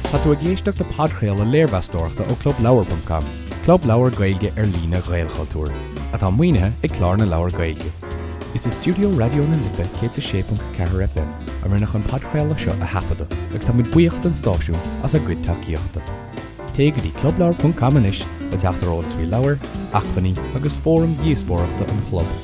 Tá tú ag éisteacht le podchraoladh léirmheastóireachta ó ClubLeabhar.com, club leabhar Gaeilge ar líne Ghaelchultúir, atá maoinithe ag Clár na Leabhar Gaeilge. Is i stiúideo Raidió na Life 106.4 FM a rinneadh an podchraoladh seo a thaifeadadh agus tá muid buíoch don stáisiún as a gcuid tacaíochta. Téigh go dtí clubleabhar.com anois le teacht ar eolas faoi leabhair, acmhainní agus fóraim dhíospóireachta an chlub.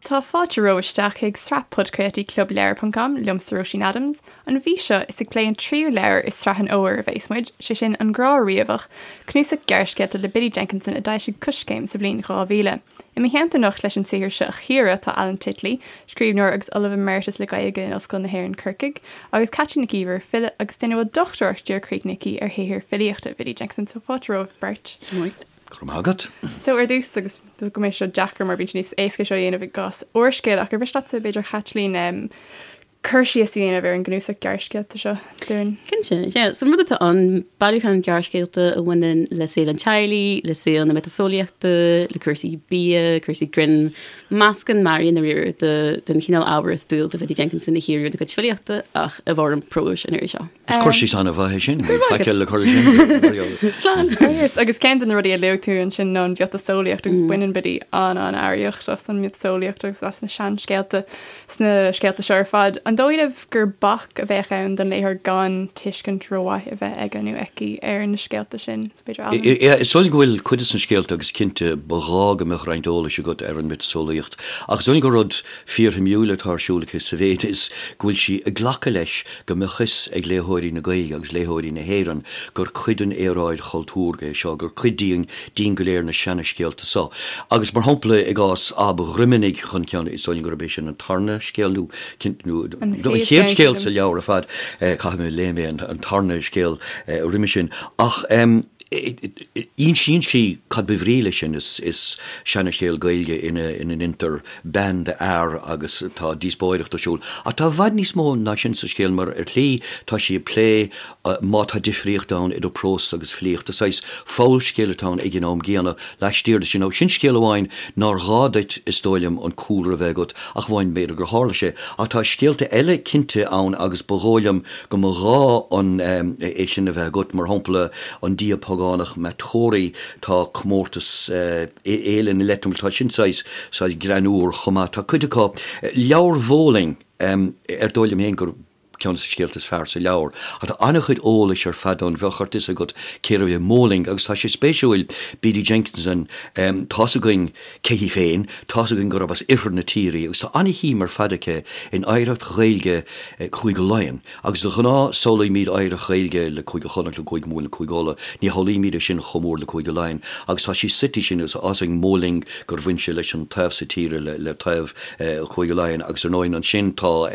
Tá fáilte romhaibh isteach chuig sraith podchraoltaí Club Leabhar ponc com, liomsa Róisín Adams. An mhí seo, is ag plé an tríú leabhar i sraith an fhómhair a bheas muid, sé sin An Grá Riabhach, cnuasach gearrscéalta le Biddy Jenkinson a d'fhoilsigh Coiscéim sa bhliain 2000. I mo theannta anocht leis an saothar seo a chíoradh tá Alan Titley, scríbhneoir agus Ollamh Emeritus le Gaeilge in Ollscoil na hÉireann Corcaigh, agus Caitlín Nic Íomhair, file agus duine a bhfuil dochtúireacht díreach críochnaithe aici ar shaothar filíochta Bhiddy Jenkinson. So fáilte romhaibh beirt. Go raibh maith agat. So ar dtús, agus go mbeidh seo deacair mar bíonn sé níos éasca seo a dhéanamh i gcás úrscéil, ach ar mhiste leatsa b'fhéidir Chaitlín cur síos a dhéanamh ar an gcnuasach gearrscéalta seo dúinn? Cinnte, yeah. So an rud atá ann, bailiúchán gearrscéalta a bhaineann le saol an teaghlaigh, le saol na miotaseolaíochta, le cúrsaí bia, cúrsaí grinn, meascán mearaí i ndáiríre den chineál ábhair is dual do Bhiddy Jenkinson a chíoradh ina cuid filíochta ach i bhfoirm próis an iarraidh seo. Is cur síos an-mhaith é sin. Níl faic eile le cur leis sin. Slán. Agus agus ceann de na rudaí a luaigh tú ansin ná an mhiotaseolaíocht agus baineann Biddy an-an-earraíocht as an miotaseolaíocht agus as na seanscéalta sna scéalta seo ar fad. An dóigh libh gur bac a bheadh ann don léitheoir gan tuiscint rómhaith a bheith aige nó aici ar na scéalta sin? B'fhéidir Alan? Is dóigh liom go bhfuil cuid de na scéalta agus cinnte ba ghá go mbeadh roinnt eolais agat ar an miotaseolaíocht ach is dóigh liom gur rud fíorshuimiúil atá ar siúl aici sa mhéid is go bhfuil sí ag glacadh leis go mbeadh fhios ag léitheoirí na Gaeilge agus léitheoirí na hÉireann gur cuid den aeráid chultúrtha é seo, gur cuid dínn, dínn go léir na seana-scéalta so. Agus mar shampla i gcás Ab Dhroimeanaigh chun ceann, is dóigh liom gurb é sin an tarna scéal nó, nó an chéad scéal sa leabhar ar fad, caithfidh mé léigh mé an tarna scéal roimhe sin, ach insíonn sí cad ba bhrí leis sin, is seana-scéal Gaeilge ina ndeintear bean de fhear agus tá díospóireacht ar siúl. Ach tá i bhfad níos mó ná sin sa scéal mar ar shlí tá sí ag plé má tá difríocht ann idir prós agus filíocht. Is saghas fabhalscéal atá ann ag an am gcéanna laistiar de sin. Nó sin scéal amháin nár ghá duit is dóigh liom an cúlra a bheith agat ach amháin b'fhéidir gur tharla sé. Ach tá scéalta eile cinnte ann agus ba dhóigh liom go mba ghá an é sin a bheith agat, mar shampla an dia págánach Matori, tá comórtas Fhéile na Leitrim, tá sin saghas, saghas greannmhar chomh maith. Tá cuid acu, Leabhar Mhóling, ar dóigh liom féin gur ceann de na scéalta is fearr sa leabhar. Ach tá an-chuid eolais ar fad ann, bheadh ort fhios agat cérbh é Móling agus tá sé spéisiúil, Biddy Jenkinson, tá's againn cé hí féin, tá's againn gurb as oirthear na tíre í agus tá an-shuim ar fad aici in oidhreacht Ghaeilge Chúige Laighean. Agus de ghnáth samhlaímid oidhreacht Ghaeilge le Cúige Chonnacht, le Cúige Mumhan, le Cúige Uladh, ní shamhlaímid é sin chomh mór le Cúige Laighean. Agus tá sí suite sin agus tá's againn Móling gur bhain sé leis an taobh so tíre, le taobh Chúige Laighean. Agus ar ndóigh ansin tá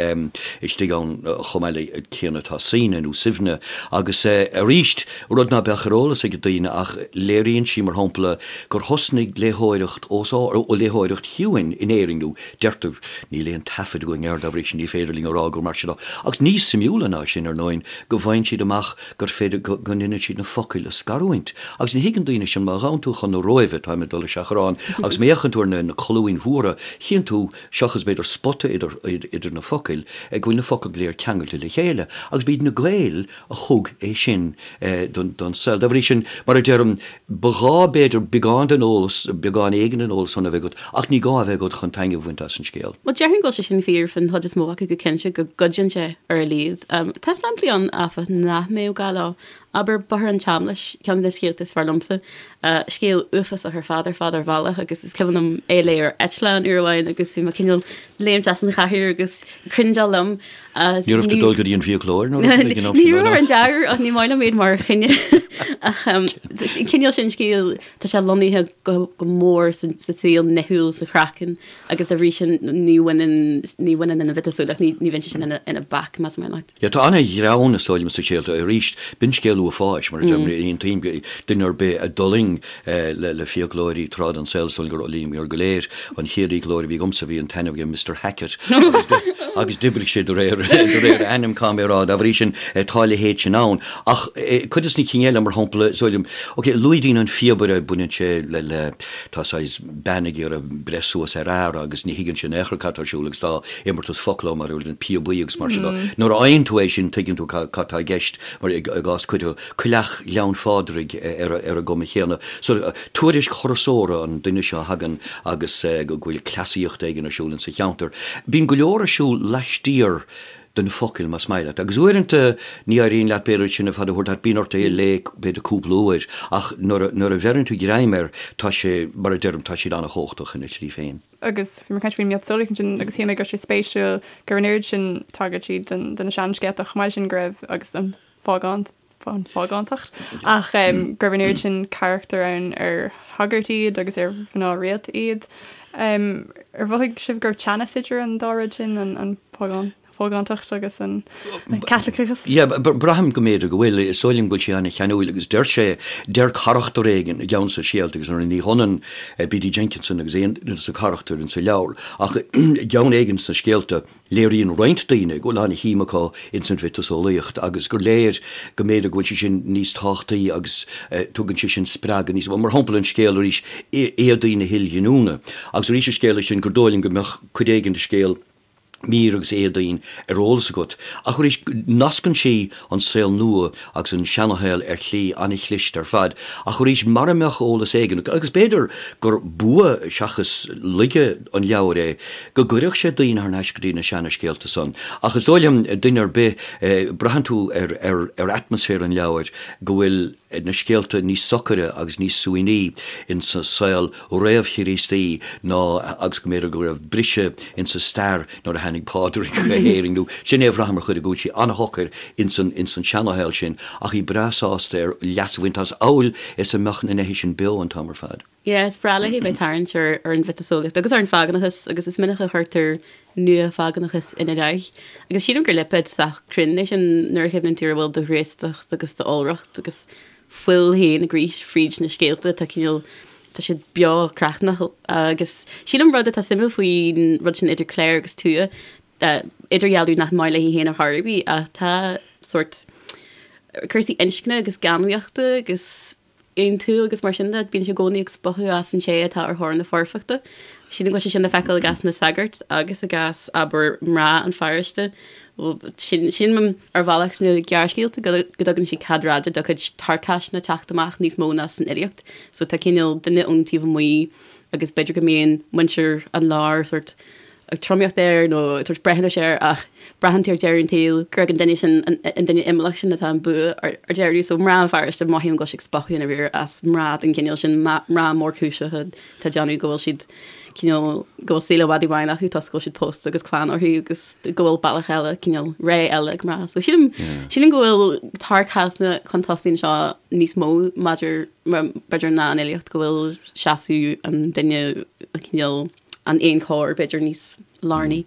istigh ann chomh maith le céanna tá Suibhne nó Suibhne. Agus arís, rud ná beadh ar eolas ag daoine ach léiríonn sí mar shampla gur thosnaigh léitheoireacht os ard, léitheoireacht chiúin in Éirinn nó Deirtear, níl aon taifead againn air, dá bhrí sin ní féidir linn a rá gur mar sin atá. Agus níos suimiúla ná sin, ar ndóigh, go bhfaigheann siad amach gur féidir go ndéanann siad na focail a scarúint. Agus ní thuigeann daoine sin, má ghabhann tú chun na Róimhe, táim ag dul i seachrán, agus má fhéachann tú ar na colúin mhóra, chíonn tú, seachas b'fhéidir spota idir na focail, go bhfuil na focail go léir ceangailte le chéile. Agus b'iad na Gaeil a thug é sin don saol. Dá bhrí sin, mar a deirim, ba ghá, b'fhéidir, beagán den eolas, beagán éigin den eolas san a bheith agat, ach ní gá a bheith agat chun taitneamh a bhaint as an scéal. Bhuel, déarfainn go bhfuil sé sin fíor faoin chuid is mó acu go cinnte, go gcuidíonn sé ar a laghad. Tá samplaí ann, áfach, nach mbeadh gá leo. Abair, Bóthar an tSeamlais, ceann de na scéalta is fearr liomsa. Scéal uafásach ar fad ar fad ar bhealach agus is cuimhin liom é a léamh ar eitleán uair amháin agus bhí mé cineál léimt as an chathaoir agus cringeáil liom. Ní raibh tú ag dul go dtí an fiaclóir nó rud éigin Ní raibh ar an dea-uair ach ní maith liom iad mar choinne. Ach an cineál sin scéil, tá sé lonnaithe go mór sa saol nithiúil, sa chraiceann agus dá bhrí sin ní bhaineann ní bhaineann an mhiotaseolaíocht, ní bhíonn sé sin ina bac, más maith leat. Yeah, tá an-ghreann is dóigh liom sa scéal arís. B'in scéal. scéal uafáis, mar a deirim, aontaím, duine ar bith a d'fhulaing le fiaclóirí tráth den saol, is dóigh liom gur fhulaingíomar go léir. An chéad fhiaclóir a bhí agamsa, bhí an t-ainm aige Mister Hackett agus d'oibrigh sé de réir a ainm, caithfidh mé a rá. Dá bhrí sin, tá a leithéid sin ann. Ach cuid de na cinn eile, mar shampla, is dóigh liom, ok, luaigh daoine an Phíobaire, baineann sé le, le, tá saghas bean ag iarraidh breith suas ar fhear agus ní thuigeann sé in aon chor cad tá ar siúl agus tá imeartas focal ann mar an píobaí agus mar sin de. Nuair a fhaigheann tú é sin, tuigeann tú cad tá i gceist, mar i gcás cuid de Coileach Ghleann Phádraig ar an gcuma chéanna. So, tuairisc thurasóra an duine seo a thagann agus go bhfuil cleasaíocht éigin ar siúl insa cheantar. Bíonn go leor ar siúl laistiar de na focail, más maith leat. Agus uaireanta ní éiríonn leat b'fhéidir sin ar fad a thabhairt leat, bíonn ort é a léamh b'fhéidir cúpla uair, ach nuair a bheireann tú greim air, tá sé, mar a deirim, tá siad an-chumhachtach ina slí féin. Agus bhí mé ag caint faoin miotaseolaíocht ansin agus shíl mé go raibh sé spéisiúil go raibh an oiread sin tagairtí do na seanscéalta chomh maith leis sin go raibh agus an phágántacht ach go raibh an oiread sin carachtar ann ar shagairt iad agus ar mhná rialta iad. Ar mhothaigh sibh go raibh teannas idir an dá rud sin, an phágántacht agus an Caitliceachas? Yeah, braithim go mb'fhéidir go bhfuil. Is dóigh liom go bhfuil sé an-cheanúil agus deir sé, deir carachtar éigin i gceann de na scéalta agus ní hionann B.D. Jenkinson agus aon duine de na carachtair insa leabhar ach i gceann éigin sna scéalta, Léiríonn roinnt daoine go bhfuil an-shuim acu ins an mhiotaseolaíocht agus gur léir go mb'fhéidir go bhfuil sé sin níos tábhachtaí agus tugann sé sin spreagadh níos mó. Mar shampla an scéal arís Éadaí na hIlghiniúna agus arís an scéal é sin gur dóigh liom go mbeadh cuid éigin de scéal Mír agus Éadaoin ar eolas agat. Ach arís nascann sí an saol nua agus an seanashaol ar shlí an-chliste ar fad, ach arís, mara mbeadh eolas éigin agat, agus b'fhéidir gur bua seachas laige an leabhair é, go gcuirfeadh sé daoine thar n-ais go dtí na seana-scéalta san. Ach is dóigh liom, duine ar bith, braitheann tú ar, ar, ar atmaisféar an leabhair go bhfuil na scéalta níos socaire agus níos suaimhní insa saol réamh-Chríostaí ná agus go mb'fhéidir go raibh briseadh insa stair nuair a tháinig Pádraig go hÉirinn nó sin é a bhraithim ar chuid go bhfuil sí an-shocair insan insan seanashaol sin ach í breá sásta ar leas a bhaint as amhail is a mbeadh na neithe sin beo an t-am ar fad. Yeah, is breá léi bheith ag tarraingt ar ar an mhiotaseolaíocht agus ar an phágánachas agus is minic a chuirtear nua-phágánachas ina leith. Agus sílim gur lipéad sách cruinn é sin nuair a chuimhníonn tú ar a bhfuil de ghraostacht agus d'iolracht agus fuil féin ag rith fríd na scéalta, tá cineál, tá siad beo cruithneach agus sílim rud atá suimiúil faoin rud sin idir cléir agus tuath, idirdhealú nach maith léi féin ar chor ar bith ach tá sórt cúrsaí inscne agus geanmnaíochta agus aontú agus mar sin de, bíonn sé i gcónaí ag spochadh as an té atá ar thóir na foirfeachta. Sílim go bhfuil sé sin le feiceáil i gcás na sagart agus i gcás, abair, mná an pharóiste. Sílim ar bhealach sna gearrscéalta go dtugann sí cead raide dá cuid tarcaisne teacht amach níos mó ná san fhilíocht. So tá cineál duine ón taobh amuigh agus b'fhéidir go mbíonn muintir an láir sórt ag tromaíocht air nó ag tabhairt breithiúnais air ach braitheann tú ar deireadh an tsaoil gur ag an duine sin, an duine imeallach sin atá an bua ar deireadh. So mná an pharóiste, mothaím go bhfuil sí ag spochadh i ndáiríre as mná den chineál sin, mná mórchúiseacha atá ag déanamh go bhfuil siad cineál, go bhfuil saol i bhfad i bhfeidhm acu toisc go bhfuil siad pósta agus clann orthu agus go bhfuil bealach eile, cineál ré eile ag mná. So sílim, sílim go bhfuil tarcaisne chun tosaigh anseo níos mó maidir, b'fhéidir ná an fhilíocht, go bhfuil seasamh an duine cineál an éan corr, b'fhéidir, níos lárnaí.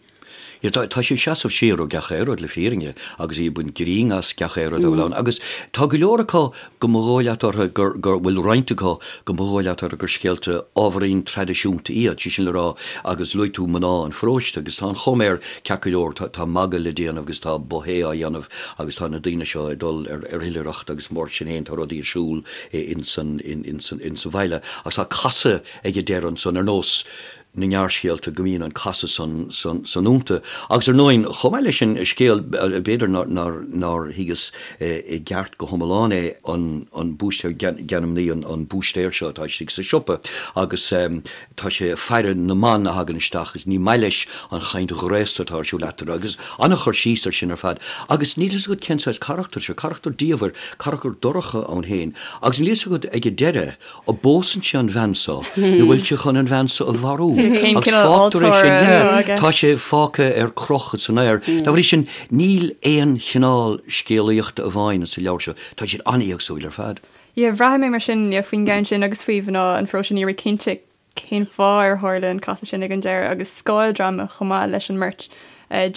Yeah, tá, tá sí ag seasamh siar ó gach aon rud, le fírinne, agus í ag baint grinn as gach aon rud a bhfuil ann. Agus tá go leor acu go mba dhóigh leat orthu gur, gur bhfuil roinnt acu go mba dhóigh leat orthu gur scéalta ábhairín traidisiúnta iad, sé sin le rá, agus luaigh tú mná an pharóiste, agus tá an chuma air ceart go leor, tá, tá magadh le déanamh agus tá buffet á dhéanamh agus tá na daoine seo ag dul ar, ar oilithreacht agus mar sin féin tá rudaí ar siúl ins an, ins an, ins an bhaile. Agus tá casadh ag an deireadh ansan, ar nós na ngearrscéalta, go mbíonn an casadh san san iontu. Agus ar ndóigh, chomh maith leis sin, scéal, b'fhéidir nár thuigeas i gceart go hiomlán é, an an búistéir, geanmnaí an búistéir seo atá istigh sa siopa agus tá sé ag faire na mban a thagann isteach agus ní maith leis an chaint ghraosta atá ar siúl eatarthu agus an-chur síos ar sin ar fad. Agus níl fhios agat cén saghas carachtar seo, carachtar diamhair, carachtar dorcha ann féin agus níl fhios agat ag an deireadh, An bpósann sé an bhean so nó bhfuil sé chun an bhean so a mharú? Cén Agus cineál fágtar é sin, altóra yeah, atá aige? tá sé fágtha ar crochadh san aer. Dá bhrí sin, níl aon chineál scéalaíochta amháin sa leabhar seo, tá siad an-éagsúil ar fad. Yeah, bhraith mé mar sin, yeah, faoin gceann sin agus faoi mhná an pharóiste, ní raibh mé cinnte cén fáth ar tharla an casadh sin ag an deireadh agus scáildráma chomh maith leis an mbeirt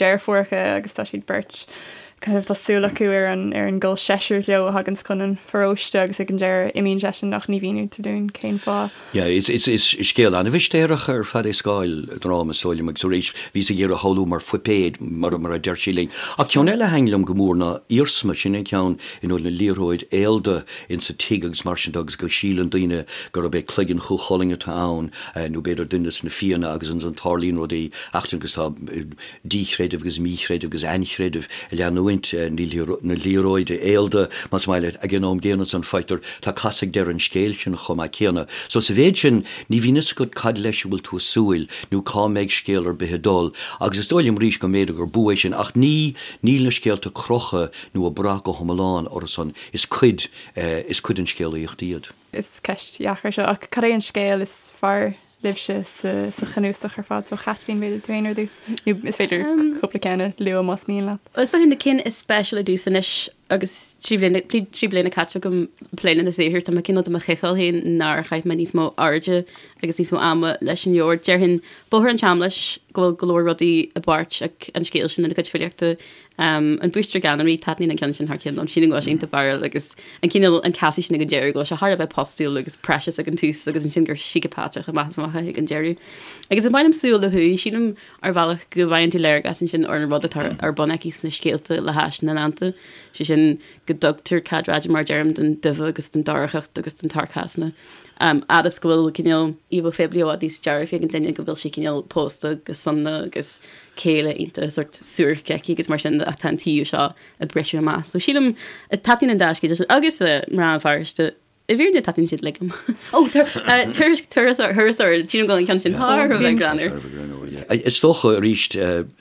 deirfiúracha agus tá siad beirt. Kind of tá súil acu ar an ar an gcol seisir leo a thaganns chun an pharóiste agus ag an deireadh imíonn seisean ach ní mhínítear dúinn cén fáth. Yeah, is is is scéal an-mhistéireach ar fad é Scáil dráma is dóigh liom agus arís bhíos ag iarraidh a shamhlú mar phuipéad mar mar a deir sí linn. Ach ceann eile a thaithin liom go mór ná Iarsma, sin an ceann ina bhfuil na liathróid aolda insa tigh agus mar sin de agus go síleann daoine gurb é cloigeann Chú Chulainn atá ann nó b'fhéidir duine de na Fianna agus ansan tarlaíonn rudaí eachtranta agus tá díchreideamh agus míchreideamh agus ainchreideamh ag leanúint na liathróide aolda, más maith leat, ag an am gcéanna ansan faightear, tá casadh ag deireadh an scéil sin chomh maith céanna. So sa mhéid sin, ní bhíonn fhios agat cad leis a bhfuil tú ag súil nó cá mbeidh scéal ar bith ag dul agus is dóigh liom arís go mb'fhéidir gur bua é sin ach ní, níl na scéalta crochta nó ag brath go hiomlán orthu san, is cuid, is cuid den scéalaíocht iad. Is ceist dheacair seo ach cad é an scéal is fearr libhse sa chnuasach ar fad. So Chaitlín, b'fhéidir tú féin ar dtús, nó is féidir cúpla ceann a lua más mian leat. Is dócha na cinn is speisialta domhsa anois agus 3 bliana, 3 bliana caite agam ag plé lena saothar, tá mé cineál do mo chiceáil féin nár chaith mé níos mó airde agus níos mó ama leis an leabhar. Déarfainn Bóthar an tSeamlais, go bhfuil go leor rudaí i bpáirt ag an scéal sin lena cuid filíochta. An Búistéir Ganonraí, taitníonn an ceann sin thar cionn liom. Sílim go bhfuil sé iontach fearúil agus an cineál, an casadh sin ag an deireadh, go bhfuil sé thar a bheith postúil agus precious ag an tús agus ansin gur síceapatach amach is amach é ag an deireadh. Agus is maith liom Súil ó Thuaidh, sílim ar bhealach go bhfaigheann tú léargas ansin ar an rud atá ar bun aici sna scéalta le hais na ndánta, sé sin go dtugtar cead raidió mar a deirim don duibhe agus don dorchacht agus don tsearcasma. Fhad is go bhfuil cineál íomhá phoiblí i bhfad níos dearfaí ag an duine go bhfuil sí cineál pósta go sona agus céile iontach sórt suairc aici agus mar sin de ach tá an taobh seo ag briseadh amach. So sílim, taitníonn an dá scéal sin agus Mná an Pharóiste, i bhfírinne taitníonn siad uilig liom. Ó, turas, turasóir, thurasóir, sílim go bhfuil an ceann sin thar a bheith greannmhar. Is dócha arís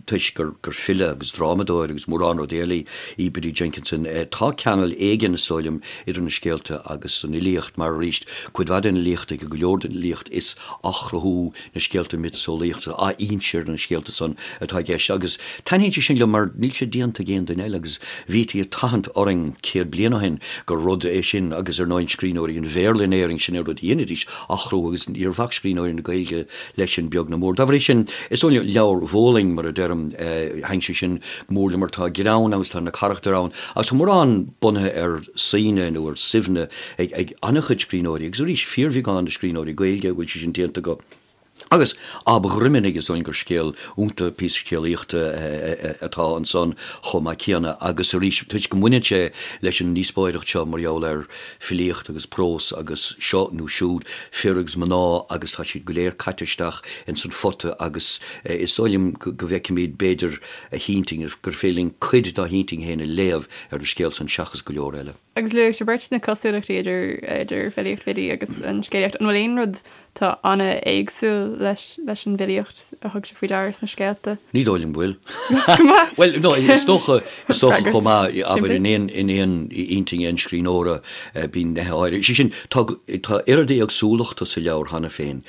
toisc gur file agus drámadóir agus mórán rudaí eile í Biddy Jenkinson, tá ceangal éigin is dóigh liom idir na scéalta agus an fhilíocht mar arís cuid mhaith den fhilíocht aici, go leor den fhilíocht is athchruthú na scéalta miotaseolaíochta, athinse ar na scéalta san atá i gceist agus taitníonn sé sin liom mar níl sé déanta ag aon duine eile agus bhítí ag tathant orainn 100 bliain ó shin gur rud é sin agus ar ndóigh scríbhneoirí an Bhéarla in Éirinn sin é rud a dheinidís, athchruthú agus níor bhac scríbhneoirí na Gaeilge leis sin beag ná mór. Dá bhrí sin is dóigh liom Leabhar Bhóling mar a deirim, thaitin sé sin go mór liom mar tá greann ann agus tá na carachtair ann agus tá mórán bunaithe ar Suibhne nó ar Suibhne ag an-chuid scríbhneoirí, agus arís, fíorbheagán de scríbhneoirí Gaeilge a bhfuil sé sin déanta acu. Agus Ab Dhroimeanaigh, is dóigh liom gur scéal iontach, píosa scéalaíochta atá ansan chomh maith céanna. Agus arís, toisc go mbaineann sé leis an ndíospóireacht seo mar gheall ar filíocht agus prós agus seo nó siúd, fir agus mná agus tá siad go léir caite isteach ins an phota agus is dóigh liom go bhfeicfimid b'fhéidir a hintinn, gur féidir linn cuid dá hintinn féin a léamh ar an scéal san seachas go leor eile. Agus luaigh sibh beirt na cosúlachtaí idir idir filíocht Bhiddy agus an scéalaíocht. An bhfuil aon rud atá an-éagsúil leis leis an bhfilíocht a thug sibh faoi deara sna scéalta? Ní dóigh liom go bhfuil. Go maith! Bhuel, no, is dócha, is dócha chomh maith, abair, in aon, in aon intinn aon scríbhneora, bíonn nithe áirithe. Sé sin, tá, tá oiread éagsúlachta sa leabhar cheana féin,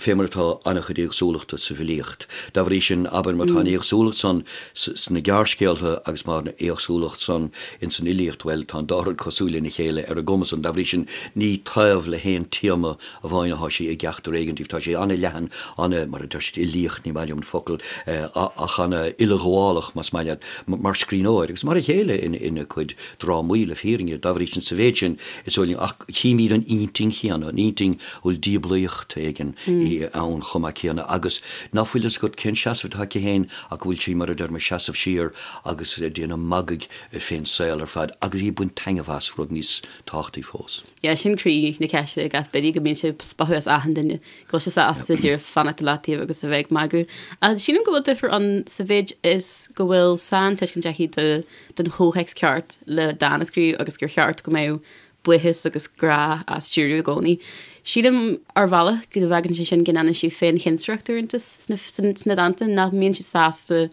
fé mar atá an-chuid éagsúlachta sa bhfilíocht. Dá bhrí sin, abair, má tá an éagsúlacht san sna gearrscéalta agus má tá an éagsúlacht san ins an fhilíocht, bhuel, tá an dá rud cosúil lena chéile ar an gcuma san. Dá bhrí sin, ní taobh le haon téama amháin atá sí i gceachtar éigin díobh. Tá sé an-leathan, ana, mar a deir siad, uilíoch, ní maith liom an focal, ach ana-uileghabhálach, más maith leat, mar scríbhneoir agus mar a chéile ina cuid drámaí, le fírinne. Dá bhrí sin, sa mhéid sin, is dóigh liom, ach chímid an intinn chéanna, an intinn a bhfuil diablaíocht éigin ann chomh maith céanna agus ná fuil fhios agat cén seasamh atá aici féin ach go bhfuil sí, mar a deirim, ag seasamh siar agus ag déanamh magaidh fén saol ar fad agus í ag baint taitneamh as, rud níos tábhachtaí fós. Yeah, sin croí na ceiste i gcás Biddy, go mbíonn sé ag spochadh as achan duine, go bhfuil sé sásta díreach fanacht i leataobh agus a bheith ag magadh. Ach sílim go bhfuil difear ann sa mhéid is go bhfuil saintuiscint aici de, den chomhthéacs ceart le dán a scríobh agus gur cheart go mbeadh buíochas agus grá á stiúradh i gcónaí. Sílim ar bhealach go bhfágann sé sin go ndéanann sí féinchinsireacht uaireanta sna dánta, nach mbíonn sí sásta,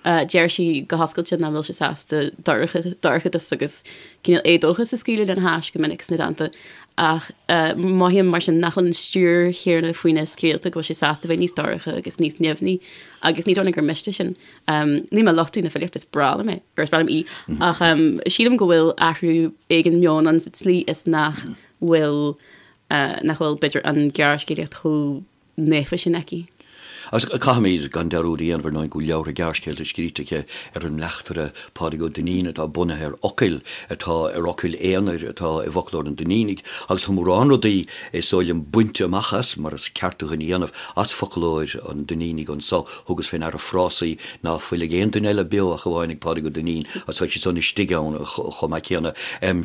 deir sí go hoscailte nach bhfuil sí sásta dorchadas agus cineál éadóchas a scaoileadh lena hais go minic sna dánta. Ach mothaím mar sin nach bhfuil an stiúir chéanna faoina scéalta, go bhfuil sí sásta bheith níos dorcha agus níos nimhní agus ní dóigh liom gur miste sin. Níl mé ag lochtú na filíochta, is breá liom é, or is breá liom í, ach sílim go bhfuil athrú éigin meoin ann sa tslí is nach bhfuil, nach bhfuil, b'fhéidir, an ghearrscéalaíocht chomh naofa sin aici. Agus caithfimid gan dearúd a dhéanamh ar ndóigh go bhfuil leabhartha gearrscéalta scríte aici ar an mbleachtaire Pádraig Ó Duinnín atá bunaithe ar fhocail atá ar fhocail aonair atá i bhfoclóir an Duinnínigh agus tá mórán rudaí is dóigh liom bainte amach as, mar is ceart do dhuine a dhéanamh, as foclóir an Duinnínigh anso. Thugas fé ndeara frásaí ná fuil ag aon duine eile beo ach amháin ag Pádraig Ó Duinnín agus tá siad san istigh ann chomh maith céanna.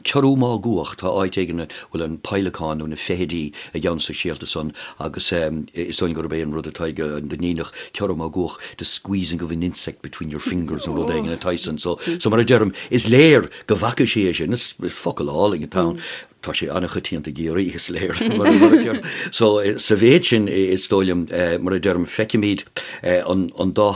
Ciorrú Máguach, tá áit éigin a bhfuil an peidhleacán nó na feithidí i gceann de na scéalta san agus is dóigh liom gurb é an rud atá ag an Duinníneach, ciorrú máguach, the squeezing of an insect between your fingers nó rud éigin atá san. So, so mar a deirim, is léir go bhfaca sí é sin, is focal álainn atá ann. Tá sé an-choitianta i gCiarraí, is léir, mar a deirim. So, sa mhéid sin, is dóigh liom, mar a deirim, feicimid an, an dá,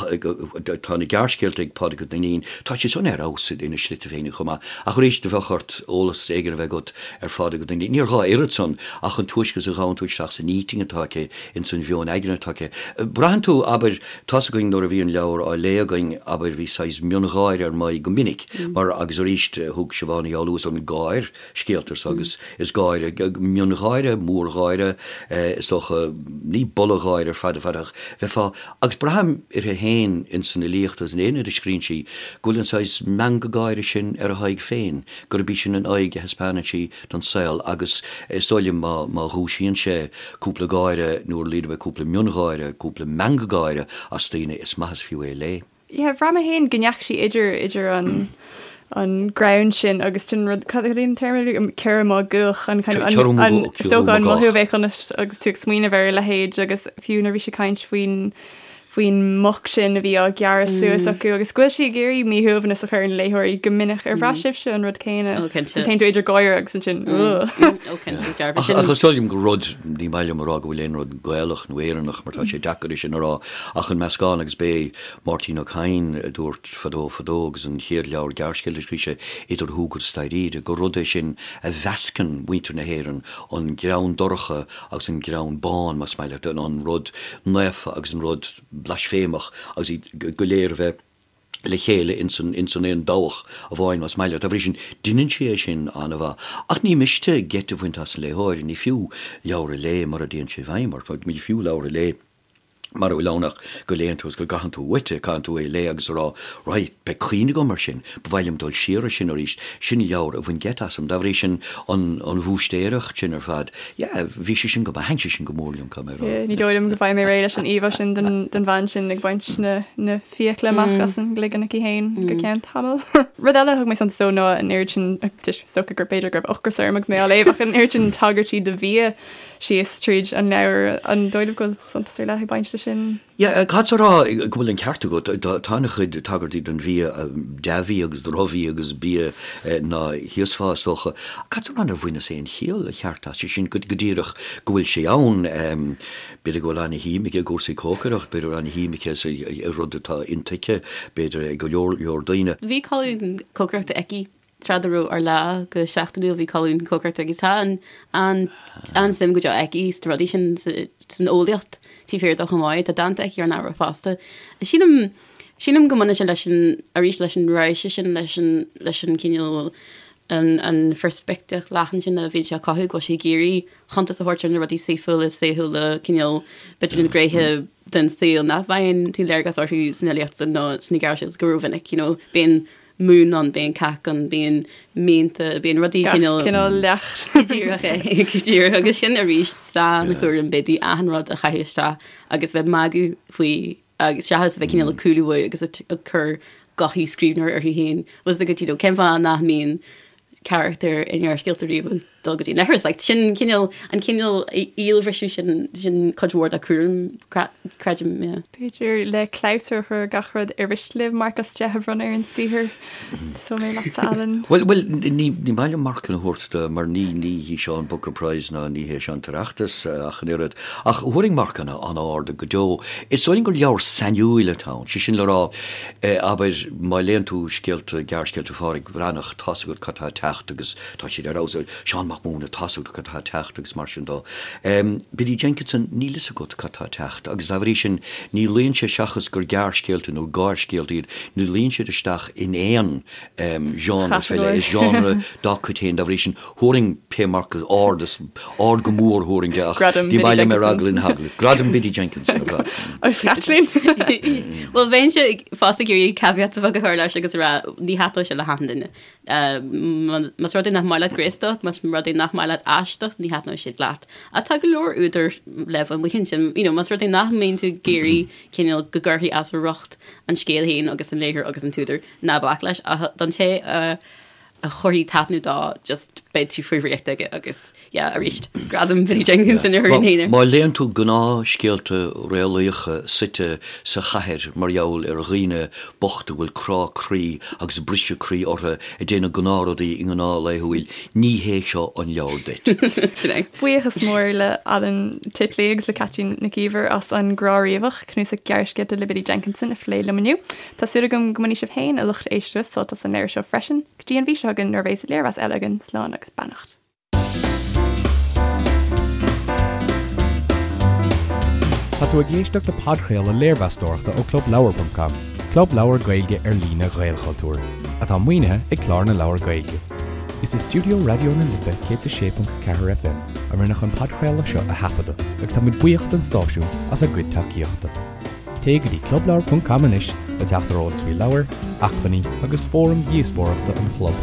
tá na gearrscéalta ag Pádraig Ó Duinnín, tá siad san ar fheabhas ina slite féinig chomh maith. Ach arís, do bheadh ort eolas éigin a bheith agat ar Phádraig Ó Duinnín. Níor ghá oiread san ach an túisce is a ghabhann tú isteach san intinn atá aici, ins an mheon aigne atá aici. Braitheann tú, abair, tá's againn nuair a bhí an leabhar á léamh againn, abair, bhí saghas miongháire ar m'aghaidh go minic, mar, agus arís, thug Siobhán Ní Fhoghlú an gáir scéalta so agus is gáire, miongháire, mórgháire, is dócha, ní boladh gáire ar fad ar fad ach bheifeá, agus braithim uirthi féin ins an fhilíocht agus in aon rud a scríonn sí, go bhfuil an saghas meangadh gáire sin ar a haghaidh féin. gurb í sin an aghaidh a thaispeánann sí don saol agus is dóigh liom má má dhúisíonn sé cúpla gáire nó ar a laghad cúpla miongháire, cúpla meangadh gáire as daoine, is maith is fiú é a léamh. Yeah, bhraith mé féin go ndeachaigh sí idir idir an an greann sin agus sin rud cad é an téarma ciorrú máguach an kind of an an is dócha an mothú a bheadh ionat agus tú ag smaoineamh ar a leithéid agus fiú nuair a bhí sí ag caint faoin faoin muc sin a bhí á gearradh suas acu agus go bhfuil sí ag iarraidh míshuaimhneas a chur ar na léitheoirí go minic. Ar bhraith sibhse an rud céanna? Ó, cinnte. So téann tú idir gáire agus ansin, ugh. Ó, cinnte, dearfa. Ach ach is dóigh liom gur rud, ní maith liom a rá go bhfuil aon rud Gaelach nó Éireannach mar tá sé deacair é sin a rá, ach an meascán agus b'é Máirtín Ó Cadhain a dúirt fadó fadó agus an chéad leabhar gearrscéalta a scríobh sé, Idir Shúgar is Dáiríre, gur rud é sin a mheascann muintir na hÉireann, an greann dorcha agus an greann bán, más maith leat, an rud naofa agus an rud blaisféimeach agus iad go léir a bheith le chéile ins an ins an aon dabhach amháin, más maith leat. Dá bhrí sin, deineann sí é sin an-mhaith. Ach ní miste geit a bhaint as an léitheoir, ní fiú leabhar a léamh mura dtéann sé i bhfeidhm ort, ní fiú leabhar a léamh mura bhfuil ann ach go léann tú agus go gcaitheann tú uait é, caitheann tú é a léamh agus a rá, right, beidh cuimhne agam air sin, ba mhaith liom dul siar air sin arís, sin leabhar a bhain geit asam. Dá bhrí sin, an an bhúistéireacht sin ar fad, yeah, bhí sé sin go maith, thaitin sé sin go mór liom, caithfidh mé a rá. Yeah, ní dóigh liom go mbeidh mé réidh leis an íomhá sin den den bhean sin ag baint na na fiacla amach as an gcloigeann aici féin go ceann tamaill. Rud eile a thug mé suntas dó ná an oiread sin, is dócha gur b'fhéidir go raibh ocras orm agus mé á léamh ach an oiread sin tagairtí do bhia síos tríd an leabhar. An dóigh libh go bhfuil suntas ar leith ag baint leis sin? Yeah, caithfeadsa a rá go bhfuil an ceart agat. Tá an-chuid tagairtí don bhia, dea-bhia agus drochbhia agus bia ná híosfá, is dócha. Caithfeadsa a rá nár bhaineas aon chiall cheart as sin go díreach go bhfuil sé ann. B'fhéidir go bhfuil an-shuim aici i gcúrsaí cócaireacht, b'fhéidir go bhfuil an-shuim aici i rud atá intuigthe, b'fhéidir, ag go leor leor daoine. Bhí colún cócaireachta aici Tráth dá raibh Ár Lá go seachtainiúil bhí colún cócaireachta agus tá an an an-suim go deo aici sna rudaí sin san eolaíocht taobh thiar de chomh maith. Tá dánta aici ar an ábhar fosta. Sílim sílim go mbaineann sé leis an arís leis an raidhse sin leis an leis an cineál an an pheirspictíocht leathan sin a bhíonn sí a chothú go bhfuil sí ag iarraidh cuntas a thabhairt ar na rudaí saoithiúla saoithiúla cineál b'fhéidir na gnéithe den saol nach bhfaigheann tú léargas orthu san fhilíocht nó sna gearrscéalta go rómhinic you know bíonn mún ann, bíonn cac ann, bíonn mianta, bíonn rudaí Gach cineál. cineál leacht. Go díreach é, go díreach. Agus sin arís sainchúram Biddy achan rud a chaitheamh isteach agus bheith magadh faoi agus seachas a bheith cineál ag cúlú uaidh agus ag cur gothaí scríbhneora uirthi féin. Bhfuil a fhios agat, you know, cén fáth nach mbíonn carachtar i ngearrscéalta riamh ag dul go dtí an leithreas? Like, sin cineál, an cineál íolbhriseadh sin, sin cuid mhór dá cúram, creidim, yeah. B'fhéidir le clabhsúr a chur ar gach rud, ar mhiste libh marc as 10 a bhronnadh ar an saothar? Tosóidh mé leatsa, Alan. Bhuel, bhuel, ní, ní maith liom marcanna a thabhairt do, mar ní, ní hí seo an Booker Prize ná ní hé seo an tOireachtas ach an oiread. Ach thabharfainn marcanna an-ard go deo. Is dóigh liom gur leabhar sainiúil atá ann, sé sin le rá, abair, má léann tú scéalta, gearrscéalta Phádraic Bhreathnach, tá's agat cad tá ag teacht agus tá siad ar fheabhas. Seán Mac. Mac Mathúna, tá 'fhios agat cad tá ag teacht agus mar sin dó. Biddy Jenkinson, níl 'fhios agat cad tá ag teacht agus dá bhrí sin ní luíonn sé seachas gur gearrscéalta nó gáirscéalta iad, ní luíonn siad isteach in aon genre fé leith, is genre dá cuid féin, dá bhrí sin thabharfainn pé marc ard is ard go mór thabharfainn de ach Gradam ní Biddy maith liom ar Jenkinson. eagla na heagla. Gradam Biddy Jenkinson ar fad. Agus Caitlín? Bhuel, bheinnse fosta ag iarraidh caveat a bheag a chur leis agus a rá ní thaitneoidh sé le hachan duine. Más rud é nach maith leat graostacht, más rud é nach maith leat aisteacht, ní thaitneoidh sé leat. Ach tá go leor údar le bheith amuigh ansin. You know, más rud é nach mbíonn tú ag iarraidh cineál go gcuirfí as a riocht an scéal féin agus an léitheoir agus an t-údar, ná bac leis. Ach don té a a chuirfidh taitneamh dó, just beidh tú faoi dhraíocht aige agus, yeah, arís, gradam Biddy Jenkinson a thabharfainn féin air. Má léann tú gnáthscéalta réalaíocha suite sa chathair mar gheall ar dhaoine bochta a bhfuil crá croí agus briseadh croí orthu ag déanamh gnáthrudaí i ngnáth laethúil, ní hé seo an leabhar duit. Sin é. Buíochas mór le Alan Titley agus le Caitlín Nic Íomhair as An Grá Riabhach, cnuasach gearrscéalta le Biddy Jenkinson a phlé liom inniu. Tá súil agam go mbainfidh sibh féin, a lucht éisteachta, sult as an leabhar seo freisin. Go dtí an mhí seo chugainn nuair a bheas léirmheas eile againn, slán agus beannacht. Tá tú ag éisteacht le podchraoladh léirmheastóireachta ó ClubLeabhar.com, club leabhar Gaeilge ar líne Ghaelchultúir, atá maoinithe ag Clár na Leabhar Gaeilge. Is i stiúideo Raidió na Life 106.4 FM a rinneadh an podchraoladh seo a thaifeadadh agus táimid buíoch don stáisiún as a gcuid tacaíochta. Téigh go dtí clubleabhar.com anois le teacht ar eolas faoi leabhair, acmhainní agus fóraim dhíospóireachta an chlub.